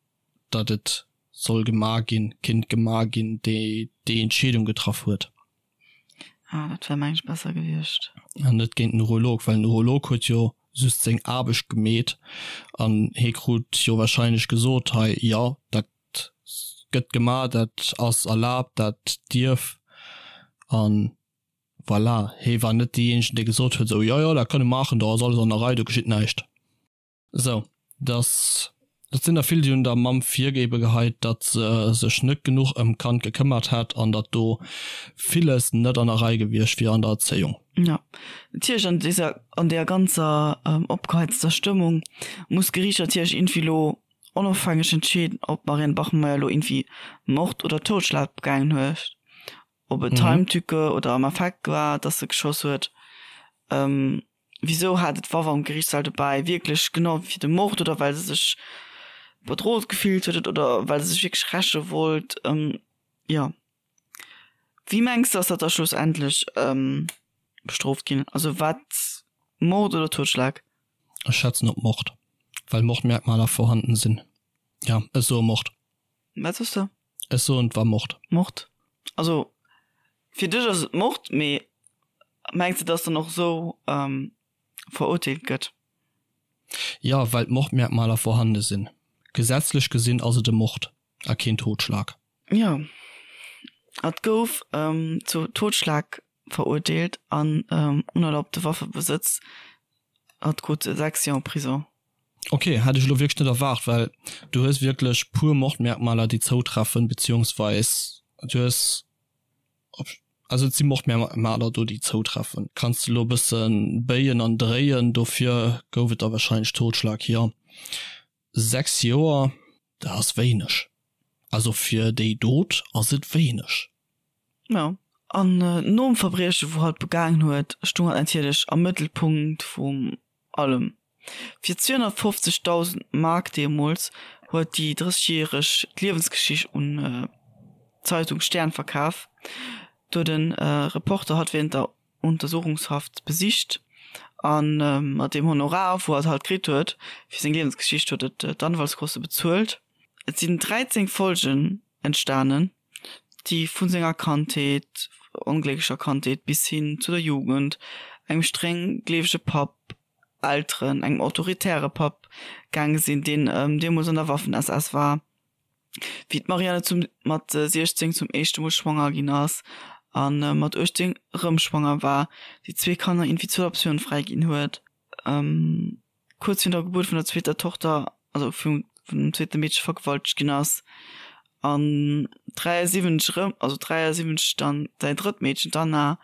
datt et soll gemaach ginn, kinnt gemaach ginn, déi déi Entscheedung getraff huet. Ah, dat wär mengen ech besser gewiescht. An net géint den Urolog, well den Urolog huet jo just seng Aarbecht gemeet an hee krut jo wahrscheinlech gesot, hei, jo, dat gëtt gemaach, dat ass erlaabt, dat dierf. An voilà, hee war net deejéinegen, dee gesot huet, esou, jo, jo, dat kann e maachen, do ass alles an der Rei, do geschitt näischt. Sou, dass, et sinn der vill, déi hunn der Mamm virgeebe geheit, datt se sech net genuch ëm d'Kand gekëmmert hätt an datt do villes net an der Rei gewiescht wier an der Erzéiung. Jo, natierlech an deser, an deer ganzer opgeheizter Stëmmung muss d'Geriicht natierlech iergendwéi elo onofhängeg entscheeden, ob d'Marianne Bachmeier elo iergendwéi Mord oder Totschlag begaangen huet, ob et Heimtücke oder am Affekt war, datt se geschoss huet. Wisou hat et d'Waff am Geriichtssall dobäi? Wierklech genau fir de Mord oder well se sech. bedroht gefillt huet oder well se sech wierklech räche wollt. Jo. Wéi mengs de ass dat da schlussendlech bestrooft ginn? Also wat, Mord oder Totschlag? Ech schätzen op Mord, well Mordmerkmaler vorhanden sinn. Jo, ech soe Mord. Wat soss de? Ech soen et war Mord. Mord. Also fir dech ass et Mord, mee mengs de dass dann och esou verurteelt gëtt? Jo, well d'Mordmerkmaler vorhande sinn. Gesetzlech gesinn ass et e Mord a keen Totschlag. Jo, et gouf zu Totschlag verurteelt an unerlaubte Waffebesëtz. Hatt krut 6 Joer Prison. Ok, hätt ech elo wierklech net erwaart, well du hues wierklech puer Mordmerkmaler déi zoutreffen, beziehungsweis du hues, also et si Mordmerkmaler do déi zoutreffen. Kanns de elo e bësse béien an dréien, dofir gouf et da wahrscheinlech Totschlag, jo. 6 Joer, dat ass wéineg. Also fir déi Dot ass et wéineg. Jo, an nom Verbrieche wou hatt begaangen huet, stung hatt natierlech am Mëttelpunkt vum allem. Fir 250.000 Mark deemools huet déi 30 järeg d'Liewensgeschicht un d'Zeitung Stern verkaf. Do huet e Reporter hatt wärend der Untersuchungshaft besicht a mat deem Honorar wou hatt halt kritt huet fir seng Liewensgeschicht huet et d'Anwaltskoste bezuelt. Et sinn 13 Folgen entstanen, déi vu senger Kandheet, onglécklecher Kandheet bis hin zu der Jugend, engem streng gleewege Papp, Elteren, engem autoritäre Papp gaange sinn, deen deemools an der Waffen-SS war, wéi d'Marianne zum mat 16 zum éischte Mol schwanger ginn ass a mat 18 erëm schwanger war, déi zwee Kanner iergendwéi zur Adoptioun fräiginn huet. Kuerz virun der Gebuert vun der zweeter Tochter, also vum zweete Meedche vergewaltegt ginn ass an 73 erëm, also 73 dann säin drëtt Meedchen, d'Anna,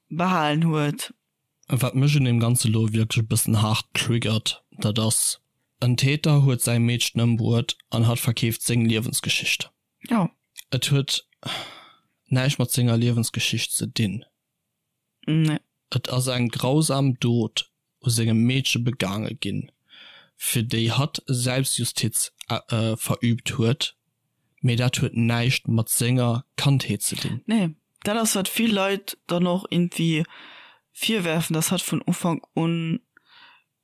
behalen huet. Wat mech un deem Ganze lo wierklech e bëssen haart triggert, dat ass, en Täter huet säi Meedchen ëmbruet an hatt verkeeft seng Liewensgeschicht. Jo. Et huet näischt mat senger Liewensgeschicht ze dinn. Nee. Et ass eng grausam Dot u sengem Meedche begaange ginn, fir déi hatt Selbstjustiz verüübt huet, mee dat huet näischt mat senger Kandheet ze dinn. Nee, dat ass wat vill Leit dann och iergendwéi virwerfen, dass hatt vun Ufank un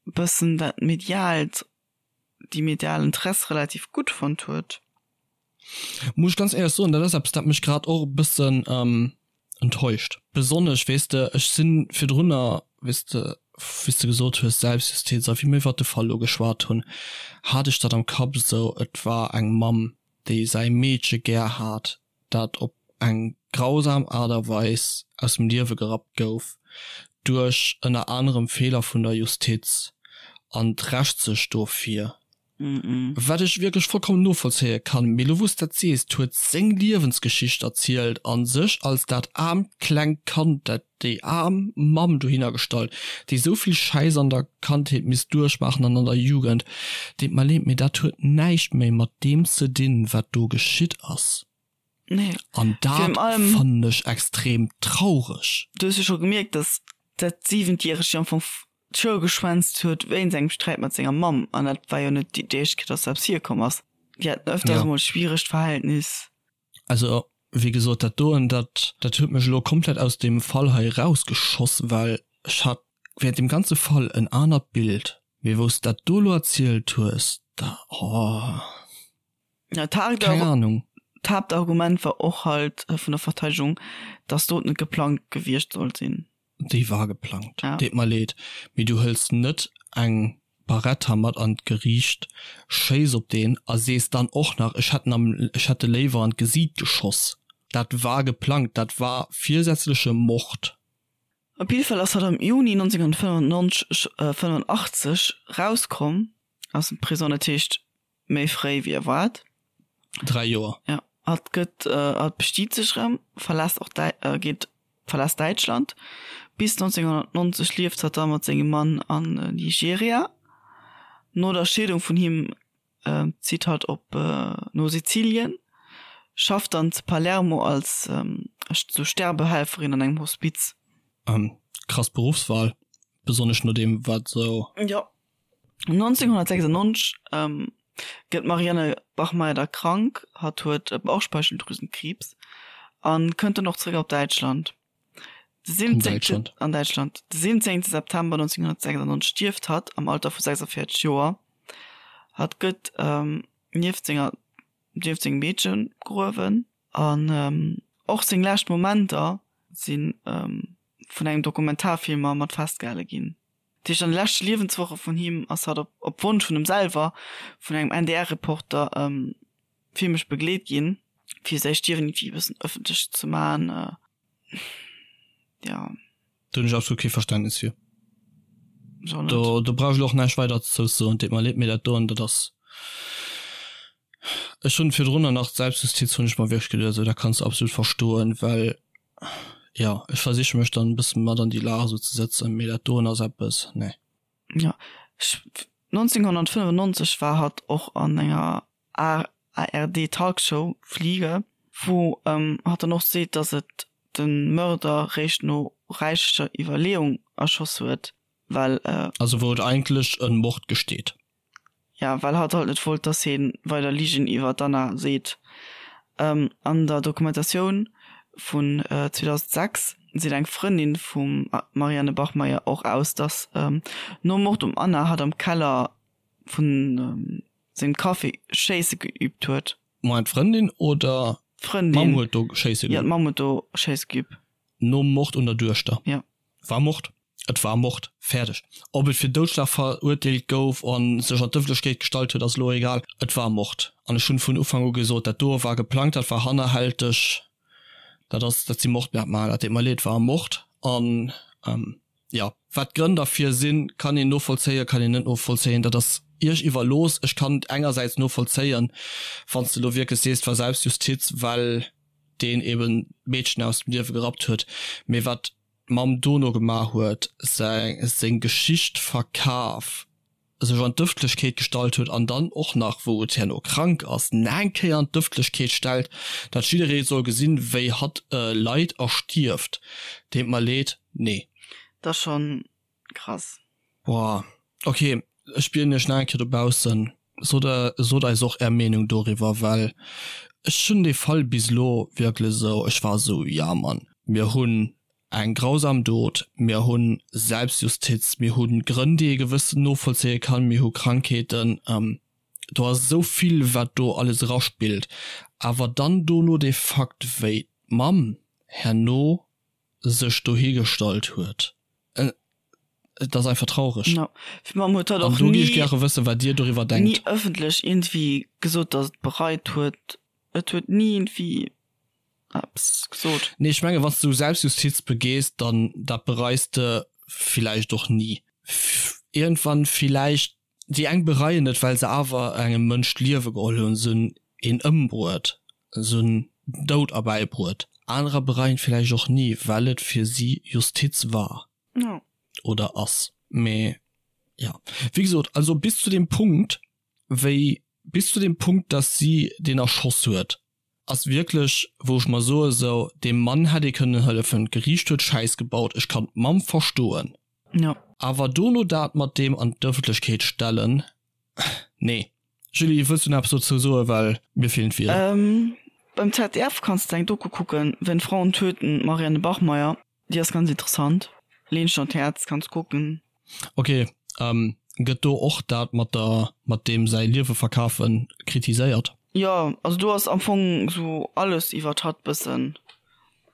bëssen dat mediaalt déi medial Interesse relativ gutt fonnt huet. Muss ech ganz éierlech soen, dat ass eppes, dat mech grad och e bëssen enttäuscht. Besonnesch, weess de, ech si virdrunner, weess de, wéi s de gesot hues, Selbstjustiz, a wéi mir iwwert de Fall elo geschwat hunn, hat ech dat am Kapp esou, et war eng Mamm, déi säi Meedche gär hat, dat op eng grausam Aart a Weis aus dem Liewe gerappt gouf, duerch ënner anerem Feeler vun der Justiz, an d'Rächt sech dofir, wat ech wierklech vollkommen novollzéie kann. Mee elo wou s dat sees, d'huet seng Liewensgeschicht erzielt a sech als dat aarmt klengt Kand, dat déi aarm Mamm dohinner gestallt, déi esou vill Schäiss an der Kandheet misst duerchmaachen an an der Jugend. Deet mer leed, mee dat huet näischt méi mat deem ze dinn, wat do geschitt ass. Nee. An dat fannen ech extrem traureg. Du hues jo scho gemierkt, dass dat Siwentjäregt jo am Fong d'Schoul geschwänzt huet wéinst engem Sträit mat senger Mamm. An dat war jo net déi éischt Kéier, dass dat eppes virkomm ass. Déi haten ëfters emol e schwieregt Verhältnis. Also wéi gesot, dat doen, dat dat huet mech elo komplett aus deem Fall hei erausgeschoss, well ech hat während deem ganze Fall en anert Bild, mee wou s de dat do elo erzielt hues, da, oh, Ja, keng Ahnung. D'Haaptargument war och halt vun der Verteidegung, dass d'Dot net geplangt gewiescht sollt sinn. Déi war geplangt. Ja. Deet mer leed, mee du hëls net eng Barretta mat an d'Geriicht, schéiss op deen a sees dann och nach, ech hätt en am, ech hätt e léiwer an d'Gesiit geschoss. Dat war geplangt, dat war virsätzleche Mord. Op jidde Fall ass hatt am Juni 1995, 85 rauskomm aus dem Prisong, dat heescht méi fréi wéi erwaart. 3 Joer. Ja, hatt gëtt, hatt bestiet sech erëm, verlässt och Däi, geet, verlässt Däitschland. Bis 1990 lieft hatt da mat sengem Mann an Nigeria. No der Scheedung vun him zitt hatt op no Sizilien, schafft dann zu Palermo als sou Sterbehelferin an engem Hospiz. Krass Beruffswahl, besonnesch no deem wat sou. Jo. 1996. Gëtt d'Marianne Bachmeier da krank, hatt huet Bauchspeicheldrüsenkriibs, a kënnt dann och zeréck op Däitschland. De 17. An Däitschland. De 17. September 1996 stierft hatt am Alter vu 46 Joer. Hatt gëtt nieft senger nieft sengem Meedche begruewen an och seng lescht Momenter si vun engem Dokumentarfilmer mat festgehale ginn. Dat heescht an de leschte Liewenswoche vun him ass hatt op op Wonsch vun him selwer vun engem NDR-Reporter filmesch begleet ginn, fir säi Stierwen iergendwéi e bëssen ëffentlech ze man. Jo. Do hunn ech absolut kee Verständnis fir. Do, do brauch ech elo och näischt weider dozou ze soen. Deet mer leed, mee dat doen, dat ass, ech hunn virdrunner nach d'Selbstjustiz hunn ech mer wierklech geduecht, esou dat kanns de absolut verstoen, well jo, ech versiche mech dann e bësse mat an déi Lag esou ze sëtzen, mee dat doen ass eppes, nee. Jo, ech, 1995 war hatt och an enger ARD Talkshow Fliege, wou hatt dann och seet, datt et de Mörder réischt no räichlecher Iwwerleeung erschoss huet, well. Also wou et eigentlech e Mord gesteet. Ja, well hatt halt net wollt, datt hie weider Ligen iwwer d'Anna seet. An der Dokumentatioun vun 2006 seet eng Frëndin vum Marianne Bachmeier och aus, datt nom Mord um Anna hatt am Keller vun sengem Café schéisse geüübt huet. Moment, d'Frëndin oder d'Mamm huet do schéisse geüübt? Jo, d'Mamm huet do schéisse geüübt. Nom Mord un der Duechter? Jo. War Mord. Et war Mord. Fäerdeg. Ob et fir Doudschlag verurteelt gouf a sech an d'Ëffentlechkeet gestallt huet, ass elo egal. Et war Mord. An ech hunn vun Ufank u gesot, dat doe war geplangt, dat war hannerhälteg, dat ass, dat si Mordmerkmaler. Dat deet mer leed, et war Mord. An Jo, wat d'Grënn derfir sinn, kann een novollzéien, kann een net novollzéien, dat ass Iech iwwerlooss. Ech kann et engersäits novollzéien, wann s de elo wierklech sees, et war Selbstjustiz, well deen eben d'Meedchen aus dem Liewe gerappt huet. Mee wat d'Mamm dono gemaach huet, seng Geschicht verkaf, sech an d'Ëffentlechkeet gestallt huet an dann och nach, wou et herno krank ass, nach eng Kéier an d'Ëffentlechkeet stellt, datt jidderee soll gesinn, wéi hatt leit a stierft, deet mer leed, nee. Dat ass schon krass. Boah, ok, ech bieden iech nach eng Kéier dobaussen, sot sot eis och är Meenung doriwwer, well ech hunn dee Fall bis elo wierklech esou, ech war esou, ja Mann, mir hunn Eng grausam Dot, mir hu Selbstjustiz, mir hu Grënn, déi ee gewëssen novollzéie kann, mir hu Krankheeten, do ass esou vill, wat do alles eraspillt. Awer dann dono dee Fakt, wéi d'Mamm herno sech dohigestallt huet, et ass einfach traureg. Jo, d'Mamm huet dat och An do géif ech gäre wëssen, wat Dir doriwwer denkt. Ni ëffentlech iergendwéi gesot, datt et bereit huet. Et huet ni iergendwéi eppes gesot. Nee, ech mengen, wann s du Selbstjustiz begees, dann dat bereis de villäicht och ni. Iergendwann villäicht, déi eng bereien et, well se awer engem Mënsch d'Liewe geholl hunn, se hunn een ëmbruet, se hunn den Doud erbäibruet. Anerer bereien et villäicht och ni, well et fir si Justiz war oder ass. Mee jo, wéi gesot, also bis zu deem Punkt, wéi bis zu deem Punkt, dass si deen erschoss huet, ass wierklech wou ech mer soe sou deem Mann hätt ee kënnen hëllefen, d'Geriicht huet Schäiss gebaut, ech kann d'Mamm verstoen. Jo. Awer dono dat mat deem an d'Ëffentlechkeet stellen, nee. Julie, wëlls du nach eppes dozou soen, well mir feelen d'Wierder. Beim ZDF kanns de eng Doku kucken, Wenn Frauen töten, Marianne Bachmeier. Déi ass ganz interessant. Leen ech der an d'Häerz, kanns kucken. Ok, gëtt do och dat mat der mat deem säi Liewe verkafen kritiséiert? Jo, also do ass am Fong sou alles iwwert hatt bëssen.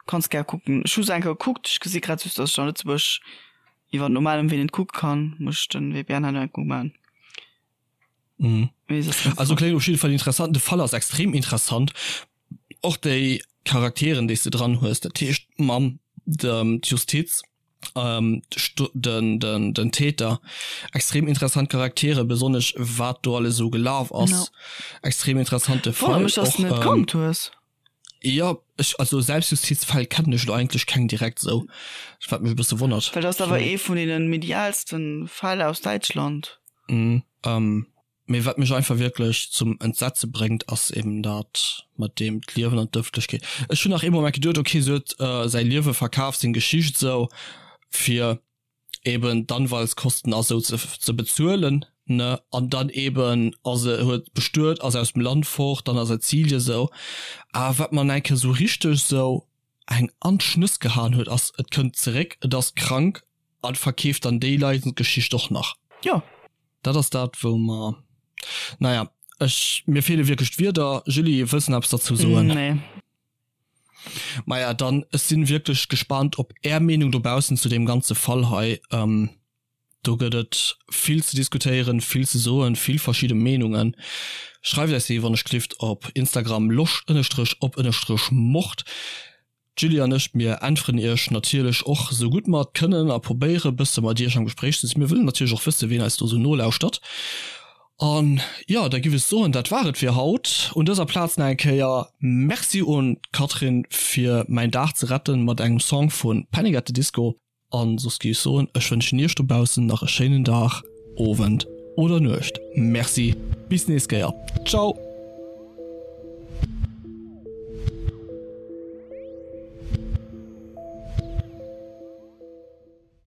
Kanns gär kucken. Ech hu se eng Kéier gekuckt, ech gesi grad just, dass ech an Lëtzebuerg iwwer normalen Wee net kucke kann. Muss ech den VPN hei nach eng Kéier umaan. Mhm. Also kléngt op jidde Fall interessant. De Fall ass extrem interessant. Och déi Charakteren, déi s de dran hues, dat heescht d'Mamm, d'Justiz, ähm, den, den, den Täter, extrem interessant Charaktere, besonnesch wat do alles esou gelaf ass. No. Extrem interessante Fall. Wonnert mech, dass du net kannt hues. Jo, ech, also Selbstjustizfäll kennen ech elo eigentlech keng direkt esou, wat mech e bësse wonnert. Well dat ass awer ee vun deene medialsten Fäll aus Däitschland. Mhm, mee wat mech einfach wierklech zum Entsetze bréngt, ass eben dat mat deem d'Liewen an d'Ëffentlechkeet. Ech hunn nach ee Moment geduet, okay, se huet säi Liewe verkaf, seng Geschicht esou, fir eben d'Anwaltskosten a sou ze bezuelen. Ne an dann eben ass e huet bestuet, ass aus dem Land fort, dann a Sizilien sou. Awer wat mer eng Kéier sou richteg sou eng an d'Schnëss gehaen huet ass, et kënnt zeréck, et ass krank an verkeeft dann déi Leidensgeschicht och nach. Jo. Dat ass dat wou mer, naja, ech, mir feele wierklech d'Wierder. Julie, wëlls de nach eppes derzou soen? Nee. Maja, dann, ech sinn wierklech gespaant op är Meenung dobaussen zu deem ganze Fall hei. Do gëtt et vill ze diskutéieren, vill ze soen, vill verschidde Meenungen. Schreift eis déi wann ech gelift op Instagram loscht-op-mord. D'Julie an ech, mir äntweren iech natierlech och sou gutt mer et kënnen a probéiere bësse mat iech am Gespréich ze sinn. Mir wëllen natierlech och wësse ween eis do sou nolauschtert. An jo, da giff ech soen, dat war et fir haut. Un dëser Plaz nach eng Kéier Merci un d'Catherine fir mäin Dag ze retten mat engem Song vu Panic at the Disco. An soss géif ech soen, ech wënschen iech dobaussen nach e schéinen Dag, Owend oder Nuecht. Merci, bis nächst Kéier. Ciao!